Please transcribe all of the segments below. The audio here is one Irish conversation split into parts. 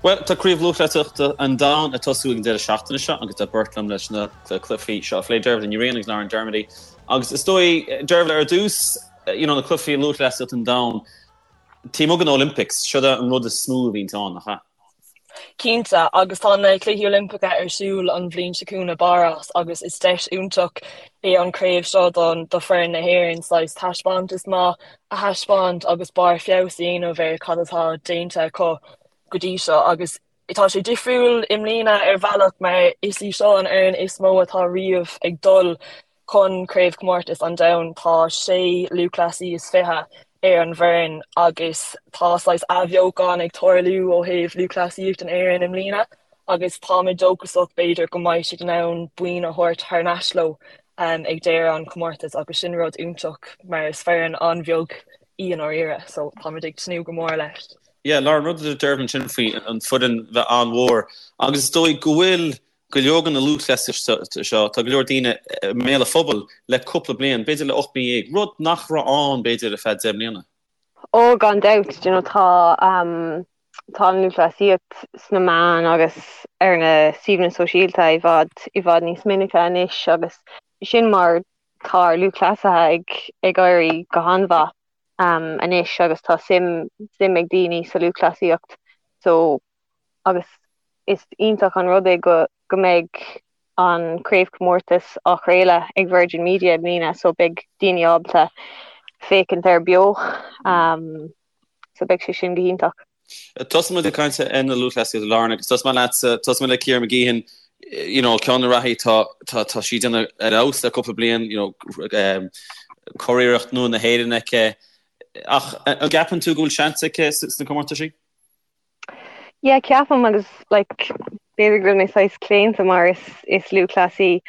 Bhuel, tá Craobh Lúthchleasaíochta an Domhain ag tosú ag an deireadh seachtaine seo agus tá beirt liom leis na cluichí seo a phlé, Dervla Ní Riain agus Lauren Dermody. Agus is dóigh, Dervla, ar dtús, you know, na cluichí lúthchleasaíochta an Domhain, taobh amuigh den Olympics, seo an rud is mó a bhíonn ann, nach ea? Cinnte, agus tá na Cluichí Oilimpeacha ar siúl an bhliain seo chugainn i bPáras agus is deis iontach é an craobh seo don do foireann na hÉireann saghas taispeántas maith a thaispeáint agus barr feabhas a dhéanamh ar cad atá déanta acu go dtí seo agus tá sé difriúil i mbliana ar bhealach mar is í seo an fhoireann is mó atá riamh ag dul chun Craobhchomórtas an Domhain. Tá sé lúthchleasaí is 20 ar an bhfoireann agus tá saghas athbheochan ag tarlú ó thaobh lúthchleasaíocht in Éirinn i mbliana agus táimid dóchasach b'fhéidir go mbeidh siad in ann boinn a thabhairt thar n-ais leo ag deireadh an chomórtais agus sin rud iontach mar is foireann an-bheag í i ndáiríre so táimid ag tnúth go mór leis. Yeah, Lauren, rud a deir Dervla ansin faoi an foireann bheith an-mhór agus is dóigh go bhfuil go leor de na lúthchleasaithe seo, tá go leor daoine i mbéal an phobail le cúpla bliain, b'fhéidir le 18 mí, rud nach raibh ann b'fhéidir ar feadh 10 mbliana. Ó, gan dabht, you know, tá tá an lúthchleasaíocht sna meáin agus ar na suíomhanna sóisialta i bhfad i bhfad níos minice anois agus sin mar tá ár lúthchleasaithe ag ag éirí go han-mhaith anois agus tá suim suim ag daoine sa lúthchleasaíocht so agus is iontach an rud é go go mbeidh an craobhchomórtas á chraoladh ag Virgin Media i mbliana so beidh daoine ábalta féachaint air beo so beidh sé sin go hiontach. Tosóidh muid ag caint ar na lúthchleasaithe Lauren agus tosóidh mé leatsa, tosóidh mé le Ciara Mageean, you know, ceann de na reathaí tá tá tá sí ag déanamh ar fheabhas le cúpla bliain, you know, curiarracht nua na hÉireann aici. Ach an gceapann tú go bhfuil seans aici sna comórtaisí? Yeah, ceapaim agus like b'fhéidir go bhfuil mé saghas claonta mar is is lúthchleasaí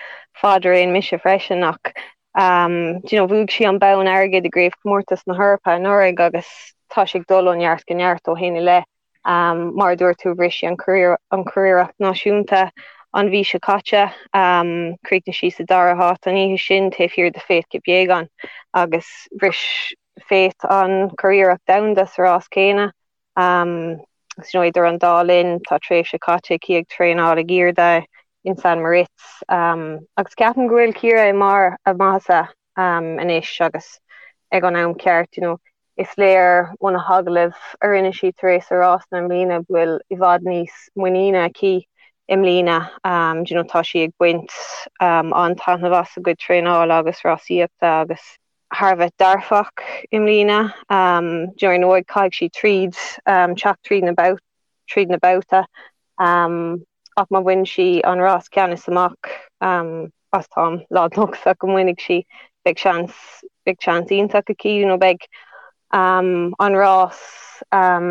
fadraoin mise freisin ach um, do you know, bhuaigh sí an bonn airgid i gCraobhchomórtas na hEorpa anuraidh agus tá sí ag dul ó neart go neart ó shin i leith. Um, mar a dúirt tú bhris sí an curiarracht náisiúnta an mhí seo caite. Um, chríochnaigh sí sa dara háit an oíche sin taobh thiar de Faith Kipyegon agus bhris Faith an curiarracht domhanda sa rás céanna. Um, agus you know, idir an dá linn tá tréimhse caite aici ag traenáil ag airde in St Moritz. Um, agus ceapaim go bhfuil Ciara i mbarr a maitheasa um, anois agus ag an am ceart, you know, is léir ó na hagallaimh a rinne sí tar éis a rásanna i mbliana go bhfuil i bhfad níos muiníne aici i mbliana. Um, you know, tá sí ag baint um, an-taitneamh as a cuid traenála agus rásaíochta agus thar a bheith dearfach i mbliana. Um, you know, ar ndóigh caithfidh sí tríd um, teacht tríd na babh tríd na babhtaí um, ach má bhain sí an rás ceannais amach um, agus táim lán-dóchasach go mbainfidh sí, beidh seans beidh seans iontach aici you know, beidh um, an rás um,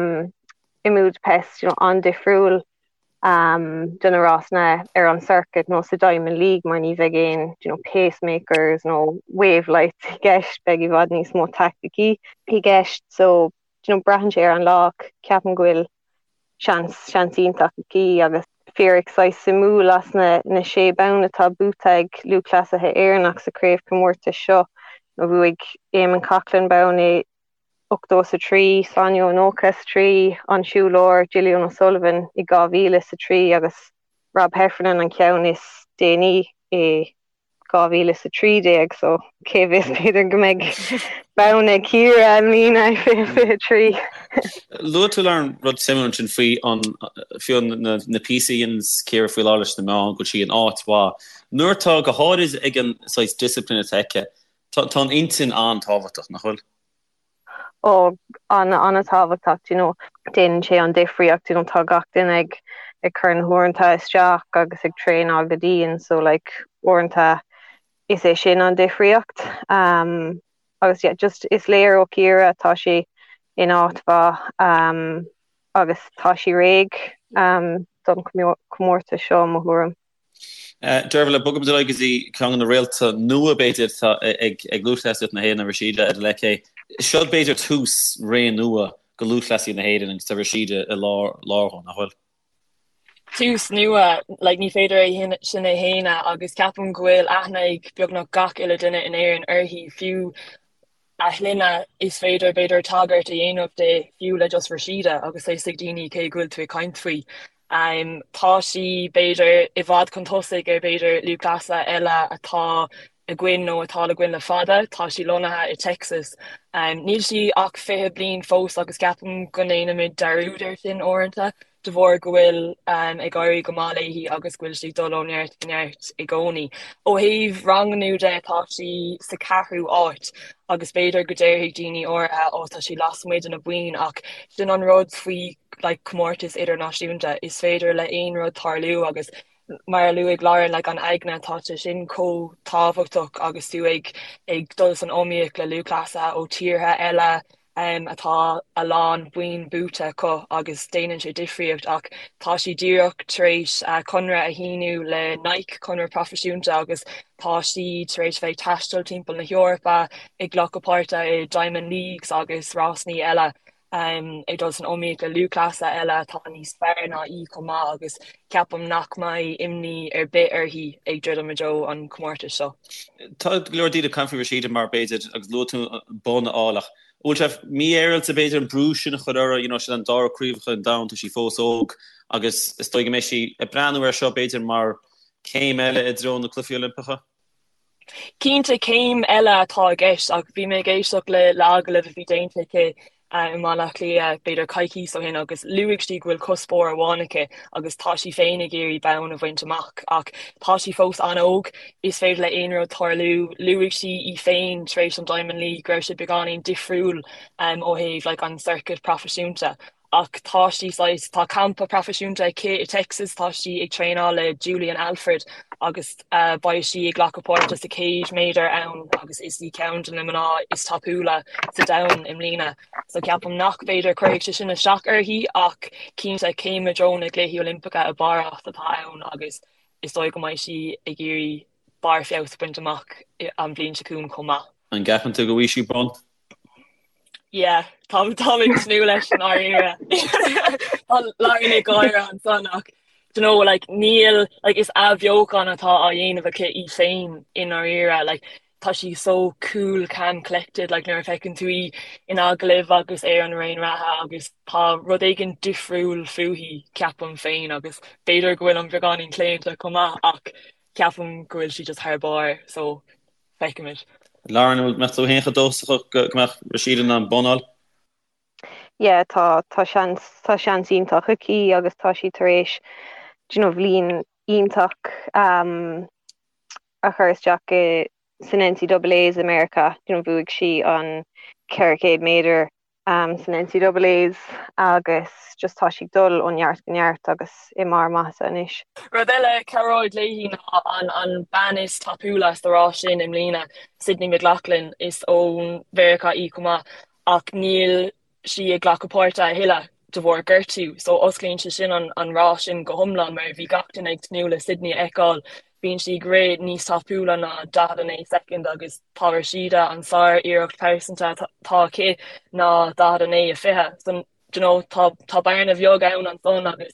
i mBudapest you know, an-difriúil um, do na rásanna ar an circuit nó sa Diamond League mar ní bheidh aon you know, pacemakers nó wave lights i gceist, beidh i bhfad níos mó taicticí i gceist so you know, braitheann sé ar an lá ach ceapaim go bhfuil seans seans iontach aici agus fíric saghas suimiúil as na na sé bonn atá buaite ag lúthchleasaithe Éireannach sa chraobhchomórtas seo nó bhuaigh Eamon Coghlan bonn i 83, Sonia 93, an siúlóir Gillian O'Sullivan i 2003 agus Rob Heffernan an ceann is déanaí i 2013 so cé bhfios b'fhéidir go mbeidh bonn ag Ciara i mbliana i 2023. Luaigh tú Lauren rud suimiúil ansin faoi an fiú na na píosaí a dhéananns Ciara faoi láthair leis na meáin go bhfuil sí in áit mhaith. Nuair atá go háirid ag an saghas discipline atá aici, tá tá an intinn an-tábhachtach, nach bhfuil? Ó, an-an-tábhachtach, do you know, déanann sé an difríocht, you know, tá gach duine ag ag cur na huaireanta isteach agus ag traenáil go dian, so like uaireanta is é sin an difríocht. Um, agus yeah, just is léir ó Ciara tá sí in áit mhaith um, agus tá sí réidh um, don comórtas seo mo thuairim. Dervla, bogfaimid ar aghaidh go dtí ceann de na réalta nua, b'fhéidir, atá ag lúthchleasaíocht na hÉireann, Rhasidat Adeleke. Seo b'fhéidir tús ré nua do lúthchleasaí na hÉireann agus tá Rhasidat i lár dhó, nach bhfuil? Tús nua, like ní féidir é sin a shéanadh agus ceapaim go bhfuil aithne ag beagnach gach uile duine in Éirinn uirthi, fiú. A shloinne, is féidir, b'fhéidir, tagairt a dhéanamh di fiú le just Rhasidat agus tá a fhios ag daoine cé go bhfuil tú ag caint faoi. Tá sí, b'fhéidir, i bhfad chun tosaigh ar, b'fhéidir, lúthchleasaithe eile atá againn nó atá againn le fada. Tá sí lonnaithe i Texas. Níl sí ach 20 bliain fós agus ceapaim go ndéanaimid dearúd air sin uaireanta de bharr go bhfuil ag éirí go maith léi agus go bhfuil sí ag dul ó neart go neart i gcónaí. Ó thaobh ranganna de tá sí sa ceathrú áit agus b'fhéidir go déarfaidh daoine áirithe ó tá sí lasmuigh de na boinn ach sin an rud faoi like comórtas idirnáisiúnta, is féidir le aon rud tarlú agus mar a luaigh Lauren, like an aigne, tá sé sin chomh tábhachtach agus tú ag ag dul san iomaíocht le lúthchleasaithe ó tíortha eile um, atá a lán boinn buaite acu agus déanann sé difríocht ach tá sí díreach tar éis uh, conradh a shíniú le Nike, conradh proifisiúnta agus tá sí tar éis bheith ag taisteal timpeall na hEorpa ag glacadh páirte i Diamond Leagues agus rásanna eile. ag dul san iomaíocht le lúthchleasaithe eile atá níos fearr ná í chomh maith agus ceapaim nach mbeidh imní ar bith uirthi ag druidim i dtreo an chomórtais seo. Tá go leor daoine ag caint faoi Rhasidat mar b'fhéidir, agus luaigh tú bonn a fháil ach an bhfuil sé mífhéaráilte b'fhéidir an brú sin a chur uirthi, you know, sin an dara craobhacha an domhain, tá sí fós óg agus is dóigh go mbeidh sí ag breathnú air seo b'fhéidir mar céim eile i dtreo na Cluichí Oilimpeacha. Cinnte, céim eile atá i gceist ach bhí mé ag éisteacht le le agallamh a bhí déanta aici i mBaile Átha Cliath b'fhéidir coicíos ó shin agus luaigh sí go bhfuil cuspóir amháin aici agus tá sí féin ag iarraidh bonn a bhaint amach ach tá sí fós an-óg, is féidir le aon rud tarlú. Luaigh sí í féin tar éis an Diamond League go raibh sé beagáinín difriúil ó thaobh like an circuit proifisiúnta Ach tá sí saghas, tá campa proifisiúnta aici i Texas, tá sí ag traenáil le Julien Alfred agus beidh sí ag glacadh páirte sa 100 méadar ann agus is í ceann de na mná is tapúla sa domhan i mbliana. So ceapaim nach b'fhéidir cuirfidh sé sin isteach uirthi ach cinnte céim i dtreo na gCluichí Oilimpeacha i bPáras atá ann agus is dóigh go mbeidh sí ag iarraidh barr feabhas a bhaint amach an bhliain seo chugainn chomh maith. An gceapann tú go bhfaighidh sí bonn? Yeah, tá tá ag tnúth leis i ndáiríre. Tá Lauren ag gáire ansan ach do you know like níl like is athbheochan atá á dhéanamh aici í féin i ndáiríre like tá sí so cool calm collected like nuair a fheiceann tú í in agallamh agus ar an raon reatha agus tá rud éigin difriúil fúithi ceapaim féin agus b'fhéidir go bhfuil an beagáinín claonta chomh maith ach ceapaim go bhfuil sí just thar barr so Feicfimid. Lauren, an mbeadh tú féin chomh dóchasach go mbeadh Rhasidat in ann bonn a fháil? Yeah, tá, tá seans, tá seans iontach aici agus tá sí tar éis, do you know, bhliain iontach um, a chur isteach i, san NCAAs i Meiriceá. Do you know, bhuaigh sí an 400 méadar san NCAAs agus just tá sí ag dul ó neart go neart agus i mbarr maitheasa anois. Rud eile a chabhróidh léi ná an an bean is tapúla sa rás sin i mbliana, Sydney McLaughlin, is ó Mheiriceá í chomh maith ach níl sí ag glacadh páirte a thuilleadh de bharr gortú so osclaíonn sé sin an an rás sin go hiomlán mar bhí gach duine ag tnúth le Sydney a fheiceáil Bíonn sí ag rith níos tapúla ná 49 soicind agus tá Rhasidat, an sár-iarracht pearsanta atá aici ná 49 20. So, do you know, tá tá bearna bheag ann ansan agus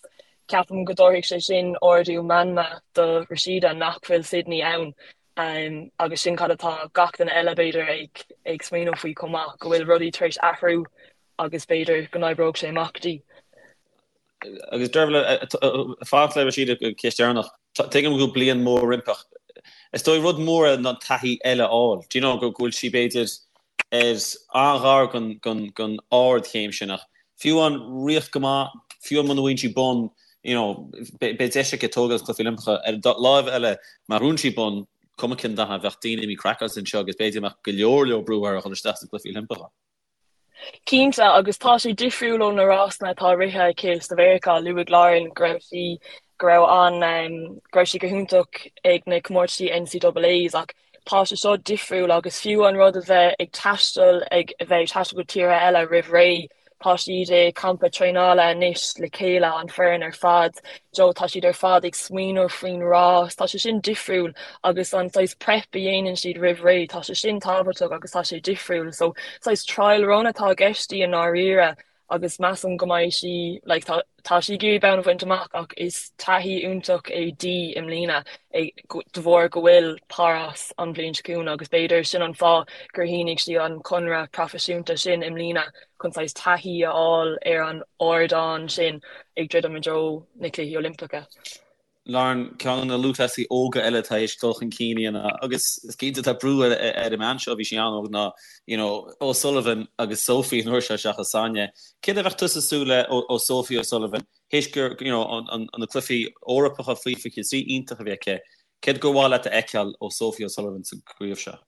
ceapaim go dtabharfaidh sé sin ardú meanma do Rhasidat nach bhfuil Sydney ann agus sin cad atá gach duine eile b'fhéidir ag ag smaoineamh faoi chomh maith, go bhfuil rudaí tar éis athrú agus b'fhéidir go n-oibreoidh sé amach di. Agus Dervla, fanacht le Rhasidat go ceist dheireanach. Tuigim go bhfuil bliain mór roimpi ach is dóigh rud mór é ná taithí eile a fháil. Do you know go bhfuil sí b'fhéidir ar an-ghar don ardchéim sin ach fiú amháin rith go maith, fiú muna bhfaigheann sí bonn, you know, beidh deis aici tógáil sna Cluichí Oilimpeacha. Ar an láimh eile, má ghnóthaíonn sí bonn, cuma cén dath é, bheadh daoine imithe craiceáilte anseo agus b'fhéidir go mbeadh go leor leor brú uirthi a dhul isteach sna Cluichí Oilimpeacha. Cinnte, agus tá sé difriúil ó na rásanna atá rite aici sa Mheiriceá. Luaigh Lauren go raibh sí go raibh an go raibh sí go hiontach ag na comórtaisí NCAAs ach tá sé seo difriúil agus fiú an rud a bheith ag taisteal ag a bheith ag taisteal go tíortha eile roimh ré, tá siad i campa traenála anois le chéile, an foireann ar fad, so tá siad ar fad ag smaoineamh faoin rás, tá sé sin difriúil agus an saghas prep a dhéanann siad roimh ré, tá sé sin tábhachtach agus tá sé difriúil. So saghas trial run atá i gceist di i ndáiríre. agus measaim go mbeidh sí like tá tá sí ag iarraidh bonn a bhaint amach ach is taithí iontach é di i mbliana de bharr go bhfuil Páras an bhliain seo chugainn agus b'fhéidir sin an fáth gur shínigh sí an conradh proifisiúnta sin i mbliana chun saghas taithí a fháil ar an ardán sin ag druidim i dtreo na Cluichí Oilimpeacha. Lauren, ceann de na lúthchleasaithe óga eile atá théis dul chun cinn a dhéanamh agus is cinnte tá brú ar an mbean seo, bhí sí an-óg, ná you know O'Sullivan agus Sophie an uair seo seachas Sonia. Céard a bheadh tusa ag súil le ó Sophie O'Sullivan théis gur you know an na cluichí Eorpacha faoi 23 iontach a bhí aici, céard gur mhaith leat a fheiceáil ó Sophie O'Sullivan sa gcraobh seo?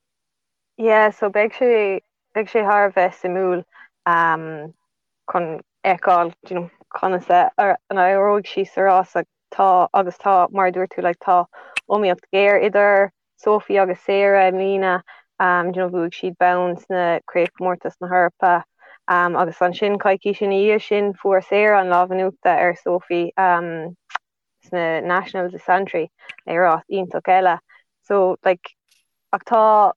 Yeah, so beidh sé beidh sé thar a bheith suimiúil um, chun fheiceáil you know, conas a n-éireoidh sí sa rás tá agus tá mar a dúirt tú like, tá iomaíocht ghéar idir Sophie agus Sarah i mbliana um, you know, bhuaigh siad bonn sna craobhchomórtais na hEorpa um, agus ansin coicís ina dhiaidh sin fuair Sarah an lámh in uachtar ar Sophie um, sna Nationals i Santry i rás iontach eile. So like, ach tá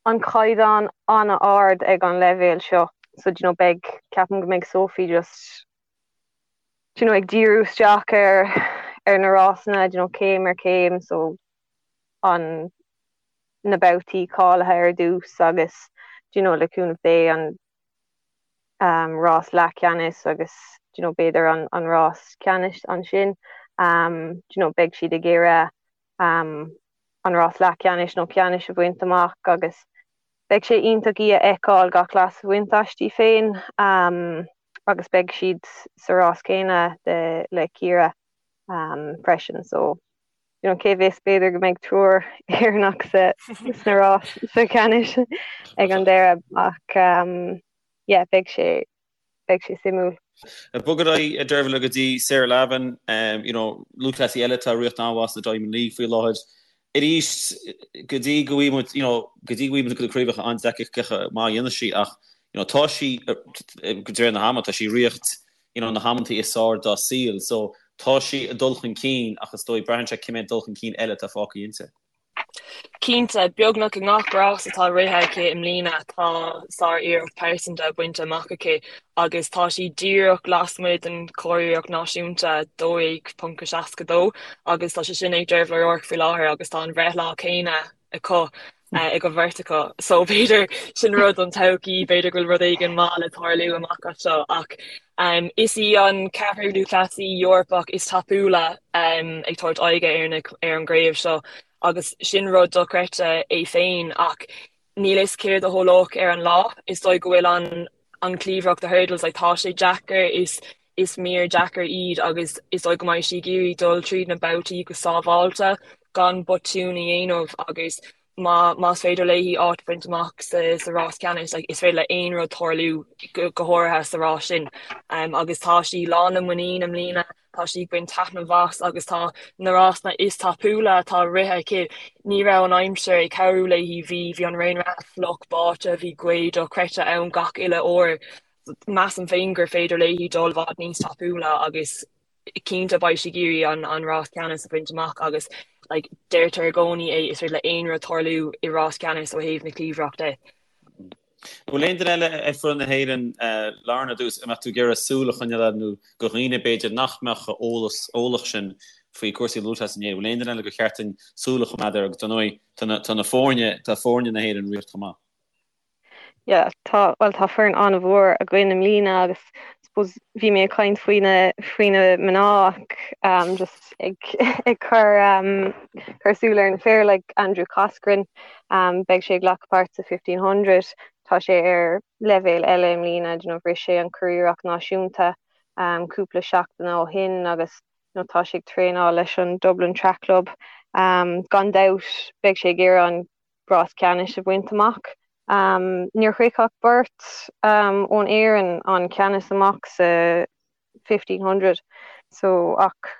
an caighdeán an-ard ag an leibhéal seo so do you know beidh ceapaim go mbeidh Sophie just do you know ag díriú isteach ar ar na rásanna do you know céim ar chéim so an na babhtaí cáilithe ar dtús agus do you know le cúnamh Dé an um, rás leathcheannais agus do you know b'fhéidir an an rás ceannais ansin um, do you know beidh siad ag iarraidh um, an rás leathcheannais nó ceannais a bhaint amach agus beidh sé iontach í a fheiceáil gach leas a bhaint aisti féin agus beidh siad sa rás céanna le Ciara freisin so you know cé bhfios b'fhéidir go mbeidh triúr Éireannach sa sna rás sa cheannais ag an deireadh ach yeah beidh sé beidh sé suimiúil. Ag bogadh ar aghaidh, a Deirbhile, go dtí Sarah Lavin, you know, lúthchleasaí eile atá ag riocht an-mhaith sna Diamond League faoi láthair. Arís, go dtí go bhfaighidh muid, you know, go dtí go bhfaighidh muid go craobhacha an-deacair cé maith a dhéanfaidh sí ach, you know, tá sí, de réir na hama, tá sí ag riocht, you know, na hamantaí is fearr dá saol. So, tá sí ag dul chun cinn ach is dóigh, braitheann sé cé mhéad dul chun cinn eile atá fágtha inti. Cinnte, beagnach i ngach rás atá rithe aici i mbliana tá sár-iarracht pearsanta bainte amach aici agus tá sí díreach lasmuigh den churiarracht náisiúnta, 12.62, agus tá sé sin ag Dervla O'Rourke faoi láthair agus tá an bhreithlá céanna acu ag an bheirt acu so b'fhéidir sin rud don todhchaí, b'fhéidir go bhfuil rud éigin maith le tarlú amach as seo ach is í an ceathrú lúthchleasaí Eorpach is tapúla ag tabhairt aghaidhe ar an gcraobh seo agus sin rud dochreidte é féin ach níl fhios céard a tharlódh ar an lá. Is dóigh go bhfuil an an chliabhrach the hurdles like tá sé deacair is is mír deacair iad agus is dóigh go mbeidh sí ag iarraidh dul tríd na babhtaí go sábháilte gan botún a dhéanamh agus má más féidir léi áit a bhaint amach sa sa rás ceannais like is féidir le aon rud tarlú go go háirithe sa rás sin. Um, agus tá sí lán le muinín i mbliana, tá sí ag baint taitneamh as agus tá na rásanna is tapúla atá rithe aici, ní raibh an aimsir ag cabhrú léi, bhí bhí an raon reatha fliuch báite, bhí gaoth dochreidte ann gach uile uair. Measaim féin gur féidir léi dul i bhfad níos tapúla agus cinnte beidh sí ag iarraidh an rás ceannais a bhaint amach agus like deirtear i gcónaí é, is féidir le aon rud tarlú i rás ceannais ó thaobh na cliabhrach de. An bhfuil aon duine eile ar foireann na hÉireann, Lauren, ar dtús, a mbeadh tú ag iarraidh súil a choinneáil air nó do dhaoine b'fhéidir nach mbeadh chomh eolas, eolach sin faoi cúrsaí lúthchleas in Éirinn, bhfuil aon duine eile gur cheart dúinn súil a choimeád air agus dar ndóigh tá na foirne, tá foirne na hÉireann ag riocht chomh maith. Yeah, tá, bhuel tá foireann an-mhór againn i mbliana agus suppose bhí mé ag caint faoi na, faoi na mná ach um, just ag, ag cur, um, cur súil ar na fir like Andrew Coscoran, um, beidh sé ag glacadh páirt sa 1500, tá sé ar leibhéal eile i mbliana, you know, bhris sé an curiarracht náisiúnta um, cúpla seachtain ó shin agus you know, tá sé ag traenáil leis an Dublin Track Club. Um, gan dabht beidh sé ag iarraidh an rás ceannais a bhaint amach. Níor shroich ach beirt ón Éirinn an ceannas amach sa 1500 so ach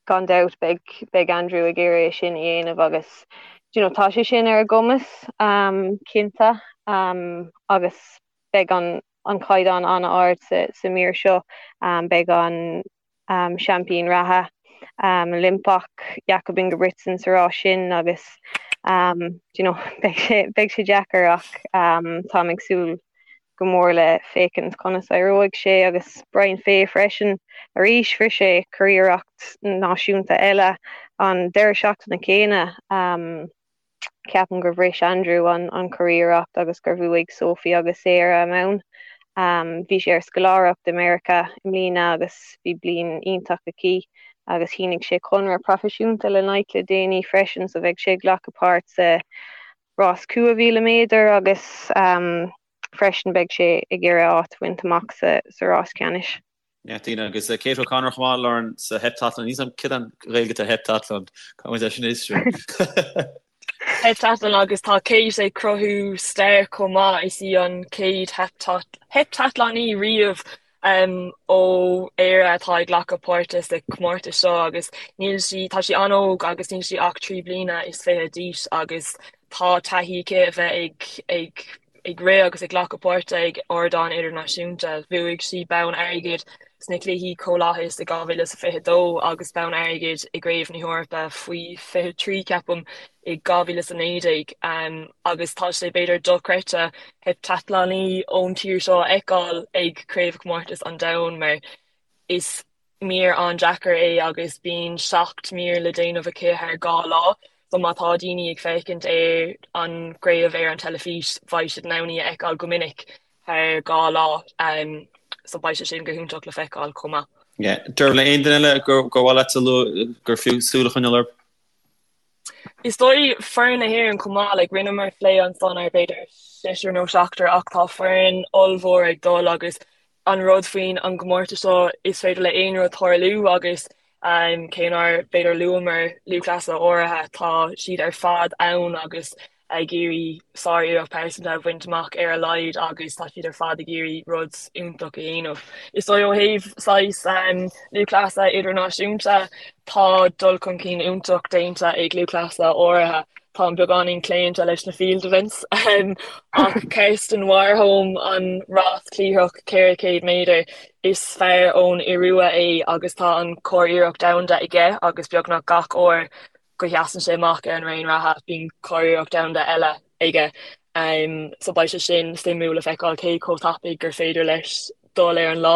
gan dabht beidh beidh Andrew ag iarraidh é sin a dhéanamh agus you know tá sé sin ar a gcumas cinnte agus beidh an an caighdeán an-ard sa sa mír seo. Beidh an seaimpín reatha Oilimpeach Jakob Ingebrigtsen sa rás sin agus you know beidh sé beidh sé deacair ach táim ag súil go mór le féachaint conas a éireoidh sé agus Brian Fay freisin arís bhris sé curiarracht náisiúnta eile an deireadh seachtaine céanna. Ceapaim gur bhris Andrew an an curiarracht agus gur bhuaigh Sophie agus Sarah a mbonn. Bhí sé ar scoláireacht i Meiriceá i mbliana agus bhí bliain iontach aici agus shínigh sé conradh proifisiúnta le Nike le déanaí freisin so bheidh sé ag glacadh páirt sa rás 5,000 méadar agus freisin beidh sé ag iarraidh áit a bhaint amach sa rás ceannais. Yeah, daoine agus Kate O'Connor chomh maith, Lauren, sa heptathlon. Níl a fhios agam céard an Ghaeilge atá ar heptathlon. Caithfidh muid é sin a fhiosrú. Heptathlon agus tá Kate ag cruthú stair chomh maith, is í an chéad heipteatlánaí riamh ó Éire atá ag glacadh páirte sa chomórtas seo agus níl sí, tá sí an-óg agus níl sí ach 23 bliana d'aois agus tá taithí aici a bheith ag ag ag rith agus ag glacadh páirte ag ardán idirnáisiúnta. Bhuaigh sí bonn airgid sna Cluichí Comhlathais i 2022 agus bonn airgid i gCraobh na hEorpa faoi 23, ceapaim, i 2019. Agus tá sé b'fhéidir dochreidte heipteatlánaí ón tír seo a fheiceáil ag Craobhchomórtas an Domhain mar is mír an-deacair é agus bíonn 7 mír le déanamh aici thar 2 lá so má tá daoine ag féachaint ar an gcraobh ar an teilifís beidh siad in ann í a fheiceáil go minic thar 2 lá so beidh sé sin go hiontach le feiceáil chomh maith. Yeah. Dervla, aon duine eile gur mhaith leat a lua gur fiú súil a choinneáil orthu? Is dóigh foireann na hÉireann chomh maith, like rinneamar plé ansan ar b'fhéidir seisear nó seachtar ach tá foireann ollmhór ag dul agus an rud faoin an gcomórtas seo is féidir le aon rud tarlú agus cé nár b'fhéidir luamar lúthchleasaithe áirithe tá siad ar fad ann agus ag iarraidh sár-iarracht pearsanta a bhaint amach ar a laghad agus tá siad ar fad ag iarraidh rud iontach a dhéanamh. Is dóigh ó thaobh saghas lúthchleasaithe idirnáisiúnta, tá dul chun cinn iontach déanta ag lúthchleasaithe áirithe. Táim beagáinín claonta leis na field events ach Karsten Warholm an rás cliathrach 400 méadar, is fear ón Iorua é agus tá an curiarracht domhanda aige agus beagnach gach uair go sheasann sé amach ar an raon reatha, bíonn curiarracht domhanda eile aige. So beidh sé sin suimiúil le feiceáil cé chomh tapaidh gur féidir leis dul ar an lá.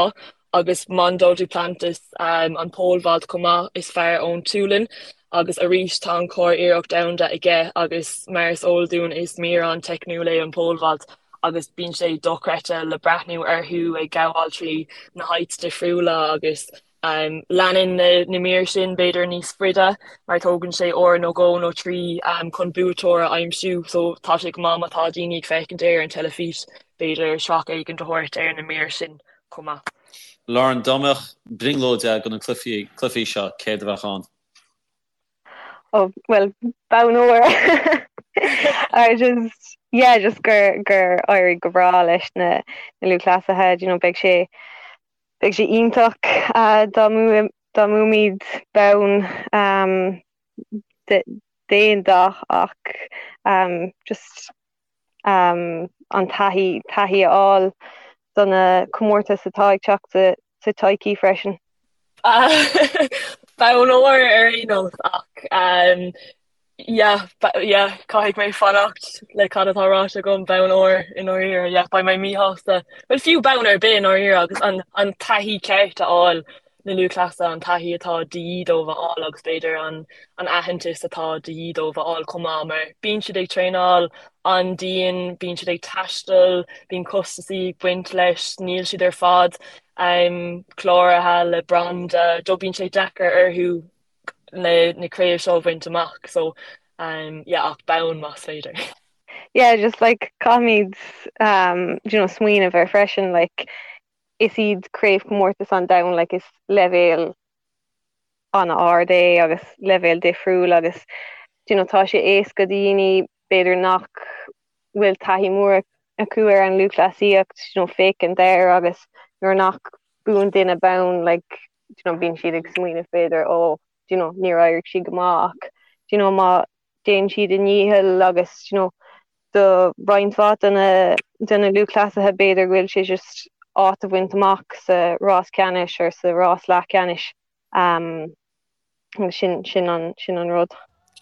Agus Mondo Duplantis, an pole vault chomh maith, is fear ón tSualainn agus arís tá an curiarracht domhanda aige agus mar is eol dúinn is mír an-teicniúil é an pole vault agus bíonn sé dochreidte le breathnú orthu ag gabháil trí na heights difriúla agus Leanann na mír sin b'fhéidir níos faide mar tógann sé uair nó dhó nó trí chun buaiteoir a aimsiú so tá sé go maith má tá daoine ag féachaint ar an teilifís b'fhéidir srac éigin a thabhairt ar na mír sin chomh maith. Lauren, dá mbeadh brionglóid agat do na cluichí seo, céard a bheadh ann? Oh, well, bonn óir. I just, yeah, just gur gur éirigh go breá leis na na lúthchleasaithe, you know, beidh sé Beidh sé iontach dá mbuafaimid bonn d'aon dath ach just an taithí, taithí a fháil do na comórtais atá ag teacht sa todhchaí freisin. Bonn óir ar aon nós ach Yeah, yeah, caithfidh mé fanacht le cad atá ráite agam, bonn óir i ndáiríre, yeah, beidh mé míshásta, bhuel fiú bonn ar bith i ndáiríre agus an, an taithí ceart a fháil, na lúthchleasaithe, an taithí atá de dhíth dóibh a fháil agus b'fhéidir an, an aitheantas atá de dhíth dóibh a fháil chomh maith mar bíonn siad ag traenáil an-dian, bíonn siad ag taisteal, bíonn costasaí ag baint leis, níl siad ar fad um, cláraithe le branda, do bíonn sé deacair orthu na na craobh seo a bhaint amach so um yeah ach bonn más féidir. Yeah just like caithfimid um you know smaoineamh air freisin like is iad craobhchomórtais an domhain like is leibhéal an-ard é agus leibhéal difriúil agus you know tá sé éasca do dhaoine b'fhéidir nach bhfuil taithí mór acu ar an lúthchleasaíocht you know féachaint air agus nuair nach buann duine bonn like you know, bíonn siad ag smaoineamh b'fhéidir ó you know, níor éirigh siad go maith ach you know, má déanann siad a ndícheall agus you know, do roinnt mhaith de na, de na lúthchleasaithe b'fhéidir go bhfuil sé just áit a bhaint amach sa rás ceannais or sa rás leathcheannais um, agus sin, sin, an, sin an rud.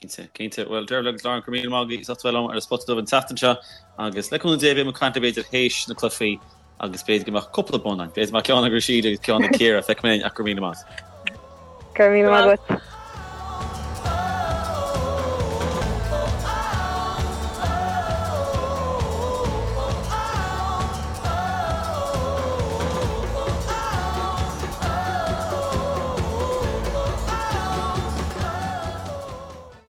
Cinnte, cinnte. Bhuel, Dervla agus Lauren, go raibh míle maith agaibh as ucht a bheith liom ar an Spota Dubh an tseachtain seo agus le cúnamh Dé beidh muid ag caint b'fhéidir théis na cluichí. Agus b'fhéidir go mbeadh cúpla bonn ann. B'fhéidir go mbeadh ceann ag Rhasidat agus ceann ag Ciara, feicfidh mé ach go raibh míle maith. Go raibh míle maith agat.